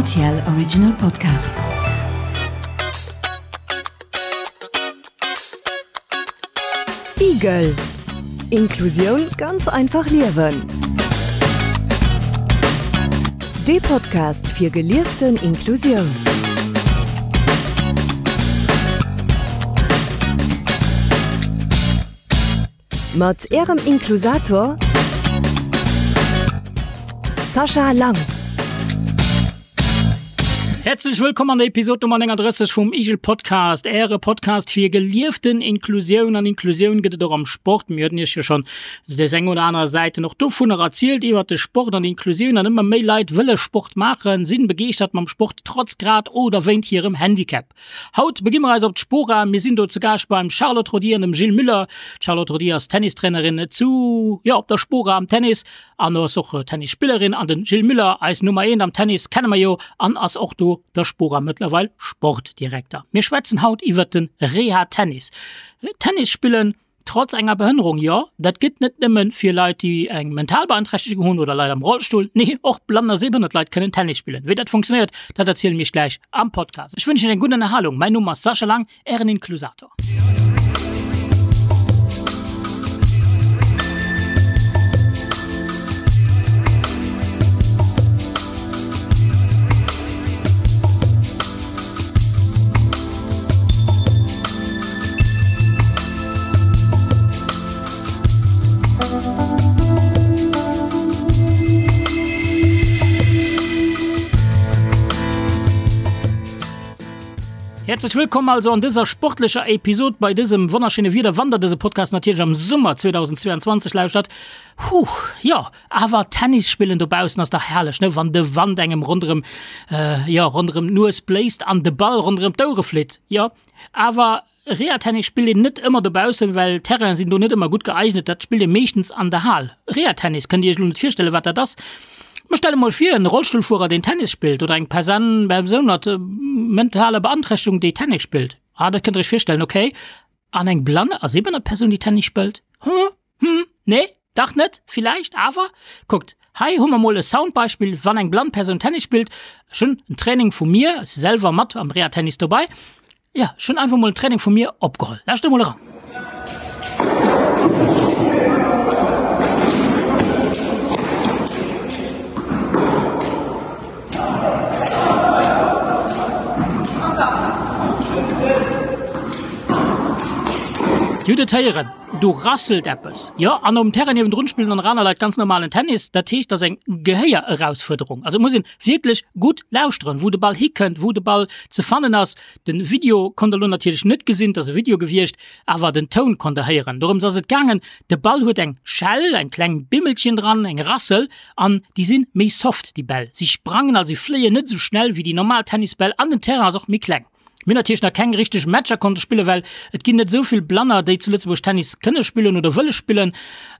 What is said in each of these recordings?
Rtl Original Podcast. Igel. Inklusioun ganz einfach liewen. Dee Podcast fir gelieften Inklusioun. Mat Ärem Inklusator Sascha Lang. Häerzlech wëllkomm an der Episod Nummer 39 vum Igel Podcast, Äre Podcast fir gelieften Inklusioun. An Inklusioun gëtt et och am Sport. Mir hueten Iech jo schonn des eng oder aner Säiten och dovunner erzielt iwwert de Sport an Inklusioun. An ëmmer méi Leit wëlle Sport maachen, sinn begeeschtert mam Sport, trotz grad oder wéint hirem Handicap. Haut beginn mer eis op d'Spora. Mir sinn do zu Gaascht beim Charlotte Rodier an dem Gilles Müller. D'Charlotte Rodier ass Tennistrainerin zu, jo, op der Spora am Tennis an ass och Tennisspillerin an den Gilles Müller, eis Nummer eent am Tennis, kenne mer jo an ass och do der Spora mëttlerweil Sportdirekter. Mir schwätzen haut iwwert de Reha-Tennis. Tennis spillen Trotz enger Behënnerung, jo, dat gëtt net nëmme fir Leit, déi eng mental Beanträchtegung hunn oder Leit am Rollstull, nee, och blann a sehbehënnert Leit kënnen Tennis spillen. Wéi dat funktionéiert, dat erziele mir iech gläich am Podcast. Ech wënschen iech eng gutt Ënnerhalung. Mäin Numm ass Sascha Lang, ären Inklusator. Häerzlech wëllkomm also an dëser sportlecher Episod bei dësem wonnerschéine Wieder, wann der dëse Podcast natierlech am Summer 2022 lauschtert. Huh, jo, awer Tennis spillen dobaussen ass dach herrlech, ne? Wann de Wand engem ronderëm, jo, ronderëm d'Nues bléist an de Ball ronderëm d'Ouere flitt. Jo, awer Reha-Tennis spillt een net ëmmer dobaussen, well d'Terrainen sinn do net ëmmer gutt geeignet. Dat spillt ee meeschtens an der Hal. Reha-Tennis, kënnt Dir Iech elo net virstellen, wat dat ass? Mä stellt emol vir, en Rollstullfuerer, deen Tennis spillt, oder eng Persan, Persoun mat mentaler Beanträchtegung, déi Tennis spillt. Ah, dat kënnt Der Iech virstellen, okay. An eng blann a sehbehënnert Persoun, déi Tennis spëllt? Hm? Hm, nee, dach net, villäicht, awer kuckt, hei hu mer mol e Soundbeispill, wann eng blann Persoun Tennis spillt. Ech hunn en Training vu mir, ech si selwer mat am Reha-Tennis dobei, jo, ech hunn einfach mol en Training vu mir opgeholl. Lauschtert emol eran. Dir hutt et héieren. Do rasselt eppes, jo. An um Terrain niewendrun spillen dann nach aner Leit ganz normalen Tennis. Dat heescht, dat ass eng Gehéier-Erausfuerderung. Also et muss een wierklech gutt lauschteren, wou de Ball hikënnt, wou de Ball ze fannen ass. Den Video konnt der elo natierlech net gesinn, et ass e Video gewiescht, awer den Toun konnt der héieren. Dorëms ass et gaangen. De Ball huet eng Schell, eng kleng Bimmelchen dran, eng Rassel, an déi sinn méi soft, déi Bäll. Si sprangen, also si fléien net esou schnell wéi déi normal Tennisbäll an den Terrain ass och méi kleng. Mir hunn natierlech nach keng richteg Matcher konnte spillen, well et ginn net esou vill Blanner, déi zu Lëtzebuerg Tennis kënne spillen oder wëlle spillen.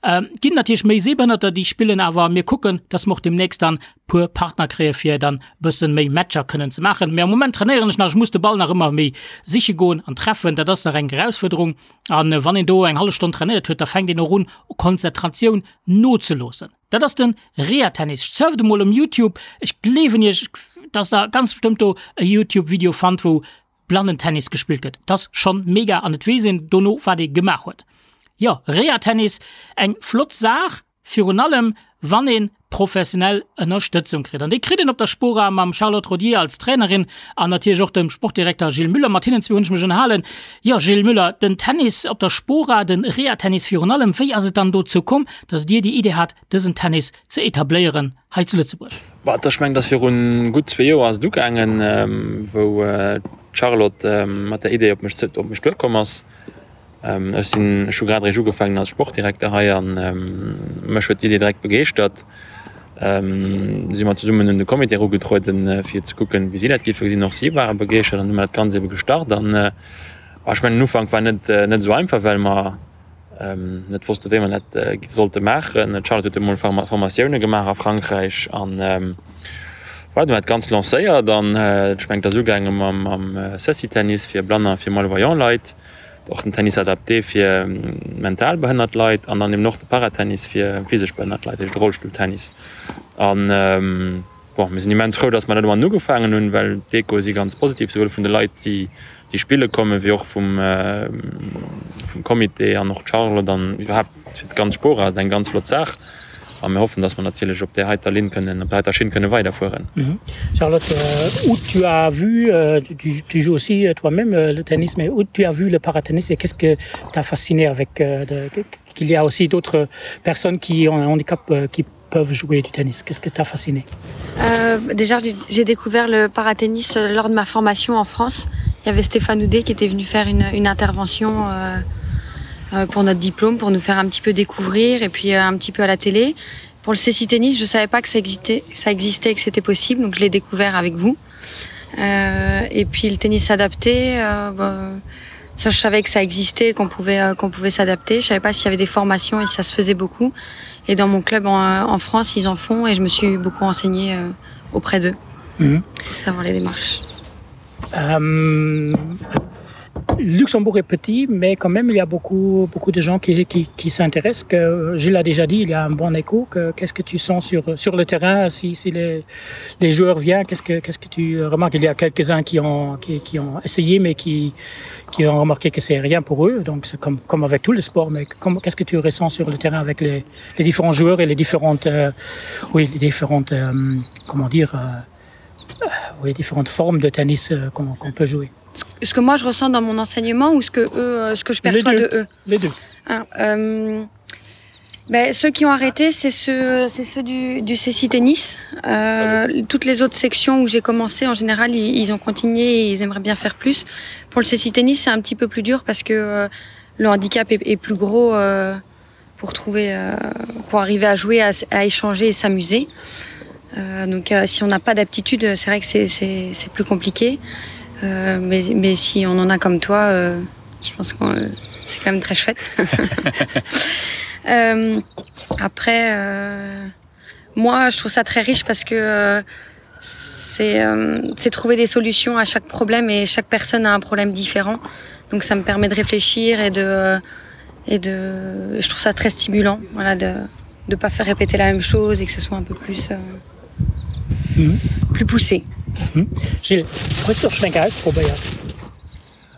Et ginn natierlech méi Sehbehënnerter, déi spillen, awer mir kucken, dass mer och deemnächst dann puer Partner kréie fir dann e bësse méi Matcher kënnen ze maachen. Mee am Moment trainéieren ech nach, ech muss de Ball nach ëmmer méi siche goen an treffen, dat ass nach eng Erausfuerderung. An wann een do eng hallef Stonn trainéiert huet, da fänkt een och un, Konzentratioun nozeloossen. Dat ass den Reha-Tennis. Surft emol um Youtube, ech gleewen iech, dass der ganz bestëmmt do e Youtube-Video fannt, wou Blannentennis gespillt gëtt. Dat ass schonn mega an et weess een dono, wat ee gemaach huet. Jo, Reha-Tennis, eng flott Saach, virun allem wann ee professionell Ënnerstëtzung kritt. An déi kritt een op der Spora mam Charlotte Rodier als Trainerin an natierlech och dem Sportdirekter Gilles Müller. Mat hinnen zwee hunn ech mech ënnerhalen. Jo, Gilles Müller, den Tennis op der Spora, den Reha-Tennis virun allem, wéi ass et dann dozou komm, dass Dir déi Idee hat, dësen Tennis ze etabléieren hei zu Lëtzebuerg? Bah, ech mengen, dass viru gutt zwee Joer ass et ugaangen, wou d'Charlotte mat der Idee op mech op mech duerkomm ass. Ech sinn, ech hu grad eréischt ugefaangen als Sportdirekter hei an mech huet d'Idee direkt begeeschtert. Si mer zesummen un de Comité erugetrueden, fir ze kucken, wéi si dat géife gesinn. Och si ware begeeschtert an hu mer dat Ganzt ebe gestart. An ech mengen, den Ufank war net net esou einfach, well mer net wosste wéi mer dat sollte maachen. D'Charlotte huet emol Formatioune gemaach a Frankräich an voilà, du hunn dat Ganzt lancéiert an ech mengen et ass ugaange mam Ceci-Tennis fir Blanner a fir malvoyant Leit, och den Tennis adapté fir mental behënnert Leit an dann eben och de Paratennis fir physesch behënnert Leit, dat heescht de Rollstulltennis. An bon, Bon, mir sinn immens frou, dass mer dat domadden ugefaangen hunn, well d'Echoe si ganz positiv, souwuel vun de Leit, déi déi spille kommen, wéi och vum vum Comité an och d'Charlotte an iwwerhaapt fir d'ganz Spora ass et eng ganz flott Saach. A mir hoffen, dass mer natierlech op där heiter Linn kënnen, op där heiter Schinn kënne weiderfueren. Charlotte, où tu as vu, tu tu joues aussi toi-même le tennis, mais où tu as vu le paratennis et qu'est-ce que t'a fasciné avec qu'il y a aussi d'autres personnes qui ont un handicap qui peuvent jouer du tennis Qu'est-ce que t'a fasciné euh, Déjà, j'ai découvert le paratennis euh, lors de ma formation en France. Il y avait Stéphane Houdet qui était venu faire une, une intervention euh, euh, pour notre diplôme, pour nous faire un petit peu découvrir et puis euh, un petit peu à la télé. Pour le CC tennis, je savais pas que ça existait, ça existait et que c'était possible, donc je l'ai découvert avec vous. Euh, et puis le tennis adapté, euh, bah, ça je savais que ça existait, qu'on pouvait, euh, qu'on pouvait s'adapter. Je savais pas s'il y avait des formations et ça se faisait beaucoup. Et dans mon club en, en France, ils en font et je me suis beaucoup renseignée euh, auprès d'eux mmh. pour savoir les démarches. Euh, Luxembourg est petit, mais quand même il y a beaucoup, beaucoup de gens qui, qui, qui s'intéressent. Que, je l'ai déjà dit, il y a un bon écho. Qu'est-ce que tu sens sur, sur le terrain si, si les, les joueurs viennent Qu'est-ce que, qu'est-ce que tu remarques Il y a quelques-uns qui ont, qui, qui ont essayé, mais qui, qui ont remarqué que c'est rien pour eux. Donc c'est comme, comme avec tout le sport, mais qu'est-ce que tu ressens sur le terrain avec les, les différents joueurs et les différentes, euh, oui, les différentes euh, comment dire, euh, oui, différentes formes de tennis euh, qu'on qu peut jouer Ce que moi je ressens dans mon enseignement ou ce que, eux, euh, ce que je perçois les de eux Les deux. Ah, euh, ben, ceux qui ont arrêté, c'est ceux, ceux du, du CC Tennis. Euh, toutes les autres sections où j'ai commencé, en général, ils, ils ont continué et ils aimeraient bien faire plus. Pour le CC Tennis, c'est un petit peu plus dur parce que euh, le handicap est, est plus gros euh, pour, trouver, euh, pour arriver à jouer, à, à échanger et s'amuser. Euh, donc euh, si on n'a pas d'aptitude, c'est vrai que c'est plus compliqué. Euh, mais, mais si on en a comme toi, euh, je pense que euh, c'est quand même très chouette. euh, après, euh, moi, je trouve ça très riche parce que euh, c'est euh, trouver des solutions à chaque problème et chaque personne a un problème différent. Donc ça me permet de réfléchir et de, et de je trouve ça très stimulant voilà, de ne pas faire répéter la même chose et que ce soit un peu plus, euh, mm -hmm. plus poussé. Mm -hmm. Gilles, hues du och schonn eng Kéier ausprobéiert?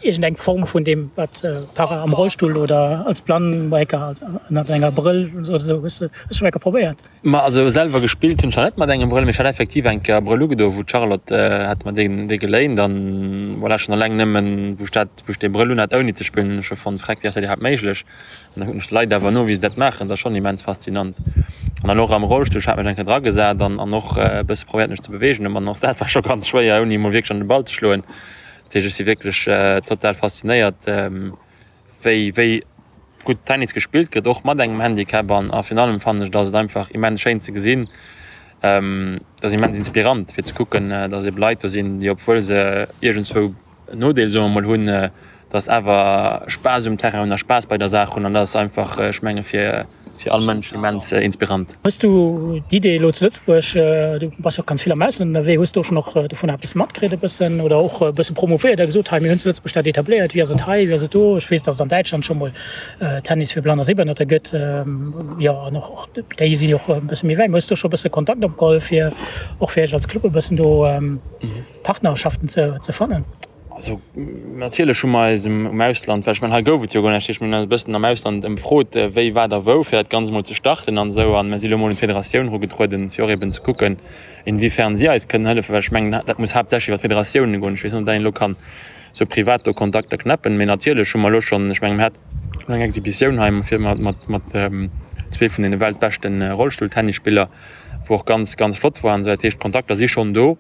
Iergendeng Form vun deem, wat Para am Rollstull oder als Blann ënnert enger Brëll oder esou, hues du schonn eng Kéier probéiert? Ma also selwer gespillt hunn ech nach net mat engem Brëll, mee ech hat effektiv eng Kéier e Brëll ugedo, wou d'Charlotte hat mer deen dee geléint an voilà, schonn alleng nëmmen wou ech dat, wou ech dee Brëll unhat ouni ze spillen, hunn ech scho fonnt, freck, wéi ass dat iwwerhaapt méiglech? An da kucken ech d'Leit awer no, wéi se dat maachen, dat ass schonn immens faszinant. An dann och am Rollstull, ech hat mech eng Kéier dragesat an an och e bësse probéiert mech ze beweegen, an och dat war scho ganz schwéier ouni emol wierklech an de Ball ze schloen. Dat heescht, ech si wierklech total faszinéiert, wéi wéi gutt Tennis gespillt gëtt, och mat engem Handicap. An a virun allem fannen ech, dass et einfach immens schéin ze gesinn, dat ass immens inspirant fir ze kucken, dass ebe Leit do sinn, déi obwuel se iergendzwou en Nodeel, soe mer mol, hunn, dass awer Spaass um Terrain hunn a Spaass bei der Saach hunn. An dat ass einfach, ech menge fir fir all Mënsch immens inspirant. Hues du d'Idee elo zu Lëtzebuerg, du bass jo och ganz vill am Ausland ënnerwee, hues du och schonn och dovun eppes matkritt e bëssen oder och e bësse promouvéiert a gesot, hei mir hunn zu Lëtzebuerg dat etabléiert, wéi ass et hei, wéi ass et do? Ech weess, datt et an Däitschland scho mol Tennis fir Blann a Sehbehënnerter gëtt, jo an och déi sinn jo och e bësse méi wäit. Hues du scho e bësse Kontakt opgeholl fir och fir iech als Club e bëssen do Partnerschaften ze fannen? Also natierlech hu mer eis um Ausland, well ech mengen hei gouf et jo guer näischt, ech hunn eis e bëssen am Ausland ëmfrot, wéi, wat a wou, fir dat Ganzt emol ze starten an esou. An mer si elo emol un d'Federatioun erugetrueden, fir och eben ze kucken, inwiefern si eis kënnen hëllefen, well ech mengen, dat muss haaptsächlech iwwer d'Federatiounen goen. Ech weess net, ob dat een elo kann esou privat do Kontakter knäppen, mee natierlech hu mer elo schonn, ech mengen, mer haten eng Exhibitioun hei fir mat, mat, mat zwee vun deene weltbeschte Rollstulltennisspiller, wou och ganz, ganz flott war an esou. Dat heescht, d'Kontakter si schonn do.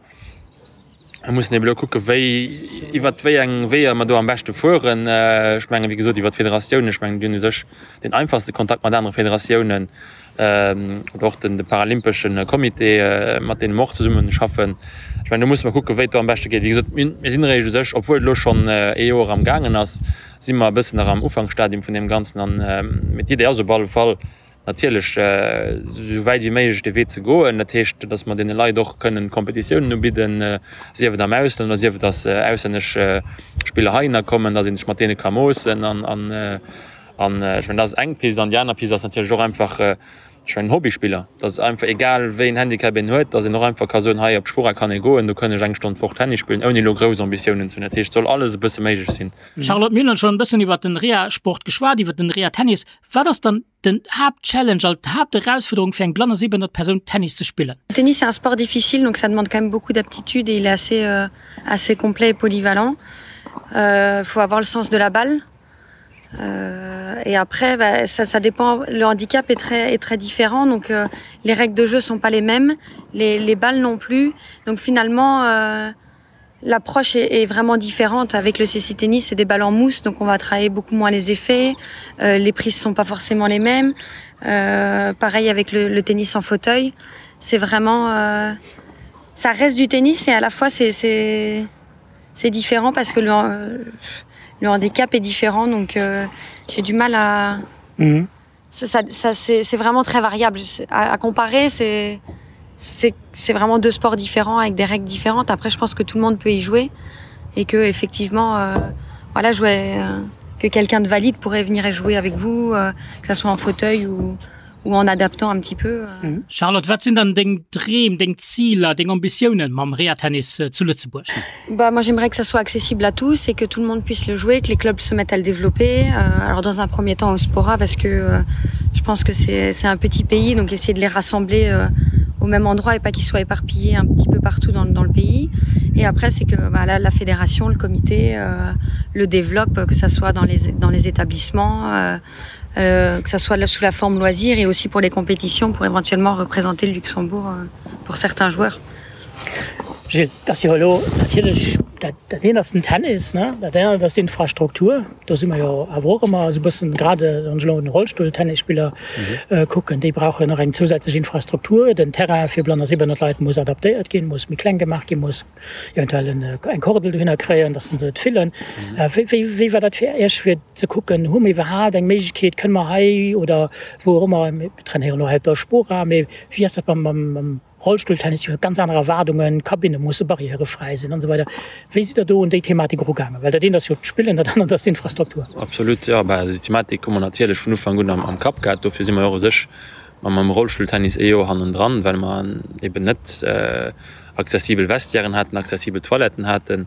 Mir mussen eben elo kucken, wéi, iwwert wéi eng Weeër mer do am beschte fueren. Ech mengen, wéi gesot, iwwert d'Federatiounen. Ech mengen, déi hunn u sech deen einfachste Kontakt mat anere Federatiounen oder och den, de paralympesche Comité, mat deene mer och zesumme schaffen. Ech mengen, do musse mer kucken, wéi et do am beschte geet. Wéi gesot, mir, mir sinn eréischt u sech, obwuel et elo schonn ee Joer am gaangen ass, si mer e bëssen nach am Ufanksstadium vun deem Ganzen an, mee d'Idee ass op alle Fall, natierlech esou wäit wéi méiglech dee Wee ze goen. Dat heescht, datt mer deene Leit och kënnen Kompetitiounen ubidden, sief et am Ausland oder sief et, datt auslännesch Spiller heihinner kommen, datt ee sech mat deene ka moossen. An ech mengen, dat ass eng Pist. An déi aner Pist ass natierlech och einfach. Ech mengen Hobbyspiller, dass einfach egal wéi en Handicap een huet, dass een och einfach ka soen, hei op d'Spora kann ee goen, do kënn ech eng Stonn d'Woch Tennis spillen, ouni elo grouss Ambitiounen ze hunn. Dat heescht, et soll alles e bësse méiglech sinn. Charlotte, mir hunn schonn e bëssen iwwert den Reha-Sport geschwat, iwwert den Reha-Tennis. Wat ass dann den Haaptchallenge, also d'Haapterausfuerderung fir eng blann a sehbehënnert Persoun Tennis ze spillen? Le tennis c'est un sport difficile donc ça demande quand même beaucoup d'aptitude et il est assez assez complet et polyvalent. Faut avoir le sens de la balle. Euh, et après bah, ça, ça dépend le handicap est très est très différent donc euh, les règles de jeu sont pas les mêmes les, les balles non plus donc finalement euh, l'approche est, est vraiment différente avec le CC tennis c'est des balles en mousse donc on va travailler beaucoup moins les effets euh, les prises sont pas forcément les mêmes euh, pareil avec le, le tennis en fauteuil c'est vraiment euh, ça reste du tennis et à la fois c'est c'est différent parce que le euh, le handicap est différent donc euh, j'ai du mal à mm -hmm. ça, ça, ça c'est vraiment très variable à, à comparer c'est c'est vraiment deux sports différents avec des règles différentes après je pense que tout le monde peut y jouer et que effectivement euh, voilà jouer euh, que quelqu'un de valide pourrait venir et jouer avec vous euh, que ça soit en fauteuil ou ou en adaptant un petit peu. Euh. Mhm. Charlotte, wat sinn dann deng Dreem, deng Ziler, deng Ambitiounen mam Reha-Tennis äh, zu Lëtzebuerg? Bah, moi j'aimerais que ça soit accessible à tous et que tout le monde puisse le jouer, que les clubs se mettent à le développer. Euh, alors dans un premier temps au Spora parce que euh, je pense que c'est un petit pays, donc essayer de les rassembler euh, au même endroit et pas qu'ils soient éparpillés un petit peu partout dans, dans le pays. Et après c'est que bah, là, la fédération, le comité euh, le développe, que ça soit dans les, dans les établissements, euh, euh, que ça soit sous la forme loisir et aussi pour les compétitions pour éventuellement représenter le Luxembourg euh, pour certains joueurs. Gilles, dat ass jo elo natierlech, dat dat eent ass den Tennis, ne, dat anert ass d'Infrastruktur. Do si mer jo awer och ëmmer esou e bëssen, grad wann ech elo un Rollstulltennisspiller kucken, déi brauchen och eng zousätzlech Infrastruktur. Den Terrain fir blann a sehbehënnert Leit muss adaptéiert ginn, muss méi kleng gemaach ginn, muss eventuell eng Kordel dohinner kréien, datt se et fillen. Wéi wéi wéi war dat fir Iech, fir ze kucken, hu mer iwwerhaapt eng Méiglechkeet, kënne mer hei oder wou och ëmmer, mir trainéieren elo hei op der Spora, mee wéi ass dat mam mam Rollstulltennis, déi hu ganz aner Erwaardungen, d'Kabinne musse barrièrefräi sinn an esou weider. Wéi sidd Der do un déi Thematik erugaangen? Well dat eent ass jo d'Spillen, dat anert ass d'Infrastruktur. Absolut, jo. Bah, déi Thematik hu mer natierlech vun Ufank un am Kapp gehat. Dofir si mer jo och u sech mam Rollstulltennis ee Joer hannendran, well mer eben net accessibel Vestiairen haten, accessibel Toiletten haten.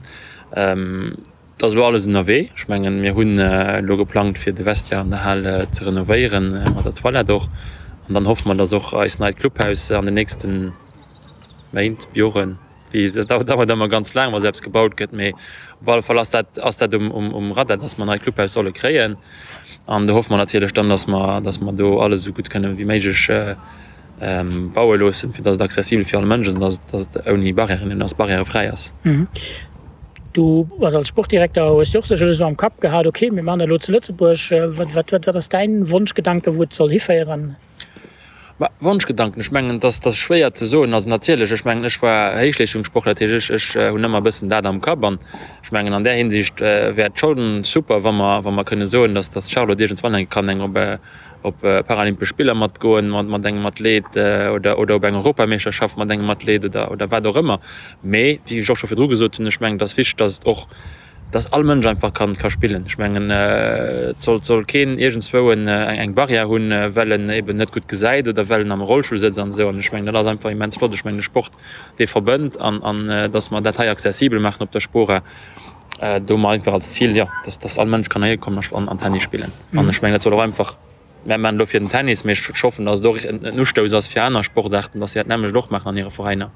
Et ass elo alles ënnerwee. Ech mengen, mir hunn elo geplangt, fir de Vestiaire an der Hal ze renovéieren, mat der Toilette och. An dann hoffe mer, dass och eist neit Clubhaus an den nächste Méint, Joren, wéi dat dauert ëmmer ganz laang, wa sou eppes gebaut gëtt, mee op alle Fall ass dat, ass dat um Radar, dass mer e neit Clubhaus solle kréien. An do hoffe mer natierlech dann, dass mer, dass mer do alles esou gutt kënne wéi méiglech baue loossen, fir dass et accessibel fir all Mënsch ass an dass, dass et ouni Barrièren ass, barrièrefräi ass. Du bass als Sportdirekter, hues de och sécherlech esou am Kapp gehat, okay, mir maachen dat elo zu Lëtzebuerg. Wat, wat, wat ass däin Wonschgedanke wou et soll hiféieren? Bah, Wonschgedanken, ech mengen, dass dat ass schwéier ze soen. Also natierlech, ech mengen, ech war Héichleeschtungssportler, dat heescht, ech, ech hunn ëmmer e bëssen dat am Kapp an ech mengen, an där Hinsicht wär et schonn super, wa mer, wa mer kënne soen, dass, dass d'Charlotte iergendswann eng kann eng op op Paralympesch Spiller matgoen mat, mat engem Athlet oder, oder op eng Europameeschterschaft mat engem Athlet oder, oder wat och ëmmer. Mee wéi ech och scho virdru gesot hunn, ech mengen, et ass wichteg, dass et och, dass all Mënsch einfach kann ka spillen. Ech mengen, et soll, soll keen iergendswou en, eng Barrière hunn, well en eben net gutt gesäit oder well en am Rollstull sëtzt an esou. An ech mengen, dat ass einfach immens flott. Ech mengen, de Sport, dee verbënnt an, an dass mer dat hei accessibel maachen op der Spora, do hu mer einfach als Zil, jo, dass, dass all Mënsch kann heihi kommen a an Tennis spillen. An ech mengen, dat soll och einfach, mär maachen elo fir den Tennis, mee ech hoffen, dass et och en Ustouss ass fir aner Sportaarten, dass si dat nämmlecht och maachen an hire Veräiner.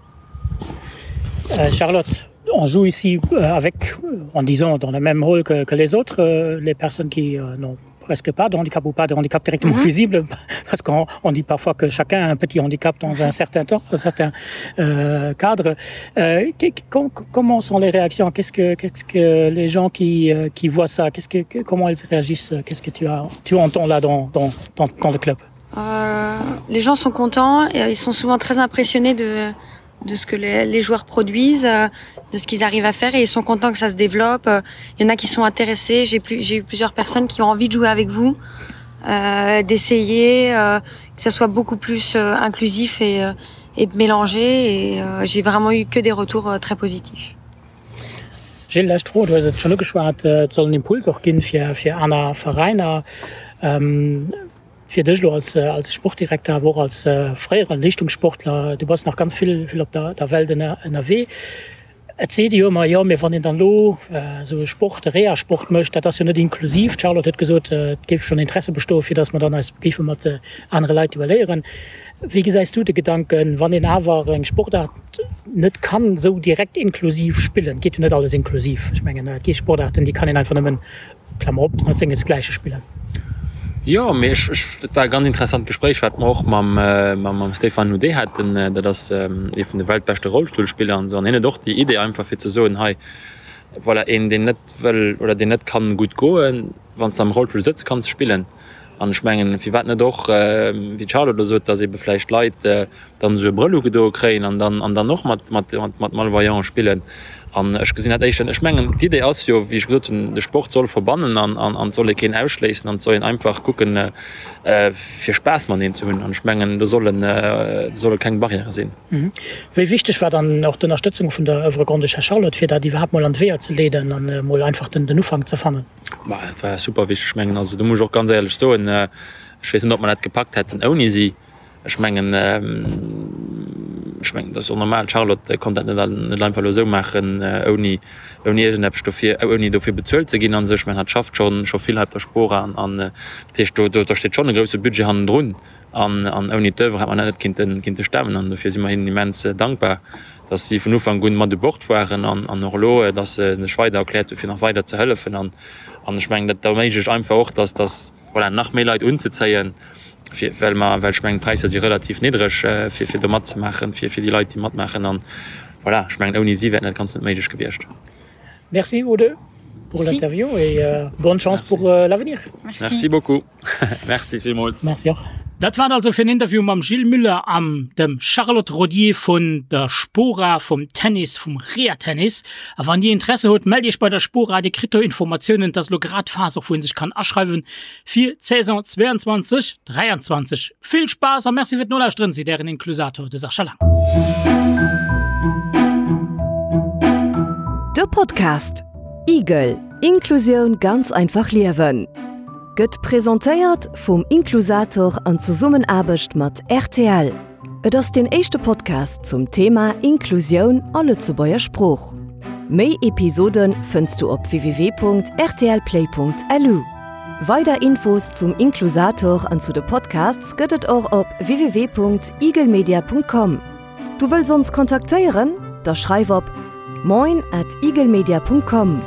Charlotte, on joue ici avec, en disant dans le même rôle que, que les autres, les personnes qui n'ont presque pas de handicap ou pas de handicap directement mm -hmm. visible parce qu'on on dit parfois que chacun a un petit handicap dans un certain temps un certain euh, cadre euh, com comment sont les réactions qu'est-ce que qu'est-ce que les gens qui euh, qui voient ça qu'est-ce que, que comment ils réagissent qu'est-ce que tu as tu entends là dans dans dans, dans le club euh, les gens sont contents et ils sont souvent très impressionnés de de ce que les, les joueurs produisent euh, de ce qu'ils arrivent à faire et ils sont contents que ça se développe il y en a qui sont intéressés j'ai plus j'ai eu plusieurs personnes qui ont envie de jouer avec vous euh, d'essayer euh, que ça soit beaucoup plus euh, inclusif et euh, et de mélanger et euh, j'ai vraiment eu que des retours euh, très positifs. Gilles, lescht Fro, du hues et schonn ugeschwat, et soll en Impuls och ginn fir fir aner Veräiner. Ähm. Fir dech elo als als Sportdirekter, awer och als fréiere Leeschtungssportler, du bass nach ganz vill vill op der der Welt ënnerwee. Et seet ee jo ëmmer, jo, mee wann een dann elo esou e Sport, e Reha-Sport mécht, dat ass jo net inklusiv. D'Charlotte huet gesot, et géif schonn Interesse bestoen, fir datt mer dann eis géife mat anere Leit duelléieren. Wéi gesäis du de Gedanken, wann een awer eng Sportaart net kann esou direkt inklusiv spillen? Et geet jo net alles inklusiv. Ech mengen, et gi Sportaarten, déi kann een einfach nëmmen Klammer op, mat sengesgläiche spillen. Jo, mee ech, ech, dat war e ganz interessant Gespréich, wat mer och mam, mam Stéphane Houdet haten. Dat ass ee vun de weltbeschte Rollstullspiller an esou. An hien huet och déi Idee einfach fir ze soen, hei, voilà, een deen net wëll oder deen net kann gutt goen, wann s de am Rollstull sëtz, kanns de spillen. An ech mengen, firwat net och, wéi d'Charlotte elo sot, datt eebe vläicht Leit dann esou e Brëll ugedoe kréien an dann, an dann och mat, mat, mat Malvoyante spillen. An ech gesinn dat éischter, ech mengen, d'Idee ass jo, wéi ech gesot hunn, de Sport soll verbannen an, an, an et soll ee keen ausschléissen an et soll een einfach kucken, fir Spaass mateneen ze hunn. An ech mengen, do sollen, do solle keng Barrièrë sinn. Wéi wichteg war dann och d'Ënnerstëtzung vun der Oeuvre Grande-Duchesse Charlotte, fir dat iwwerhaapt mol an d'Weeër ze leeden an emol einfach den, den Ufank ze fannen? Ma dat war super wichteg. Ech mengen, also do muss ech och ganz éierlech soen, ech weess net, ob mer dat gepackt hätten ouni si. Ech mengen, ech mengen, dat ass och normal, d'Charlotte konnt dat net net einfach elo esou maachen, ouni, ouni iergendeppes dofir, ouni dofir bezuelt ze ginn an esou. Ech mengen, hatt schafft scho scho vill hei op der Spora an, an dat heescht, do, do steet schonn e grousse Budget hannendrun an, an ouni d'Oeuvre hätt mer dat net kinnten, kinnte stemmen an dofir si mer hinnen immens dankbar, datt si vun Ufank un mat u Bord waren an, an och elo, datt se sech weider erkläert hu fir nach weider ze hëllefen an, an ech mengen, dat erméiglecht einfach och, datt, datt. Voilà, nach méi Leit unzezéien, fir, well mer, well ech mengen, d'Präisser si relativ niddreg, fir, fir do matzemaachen, fir, fir déi Leit, déi matmaachen. An voilà, ech mengen, ouni si wär dat Ganzt net méiglech gewiescht. Merci vous deux pour l'interview et bonne chance pour l'avenir. Merci beaucoup. Merci villmools. Merci och. Dat war et also fir en Interview mam Gilles Muller an dem Charlotte Rodier vun der Spora, vum Tennis, vum Reha-Tennis. A wann Dir Interesse hutt, mellt Iech bei der Spora, Dir kritt do Informatiounen. Et ass elo grad d'Phas och wou een sech kann aschreiwen fir d'Saison 22, 23. Vill Spaass a Merci fir d'Nolauschteren, seet Ären Inklusator, de Sascha Lang. De Podcast Igel, Inklusioun ganz einfach liewen gëtt presentéiert vum Inklusator an Zesummenaarbecht mat rtl. Et ass deen éischte Podcast zum Thema Inklusioun a Lëtzebuerger Sprooch. Méi Episode fënns du op www.rtlplay.lu. Weider Infos zum Inklusator an zu de Podcasts gëtt et och op www.igelmedia.com. Du wëlls ons kontaktéieren? Da schreif op moin at igelmedia.com.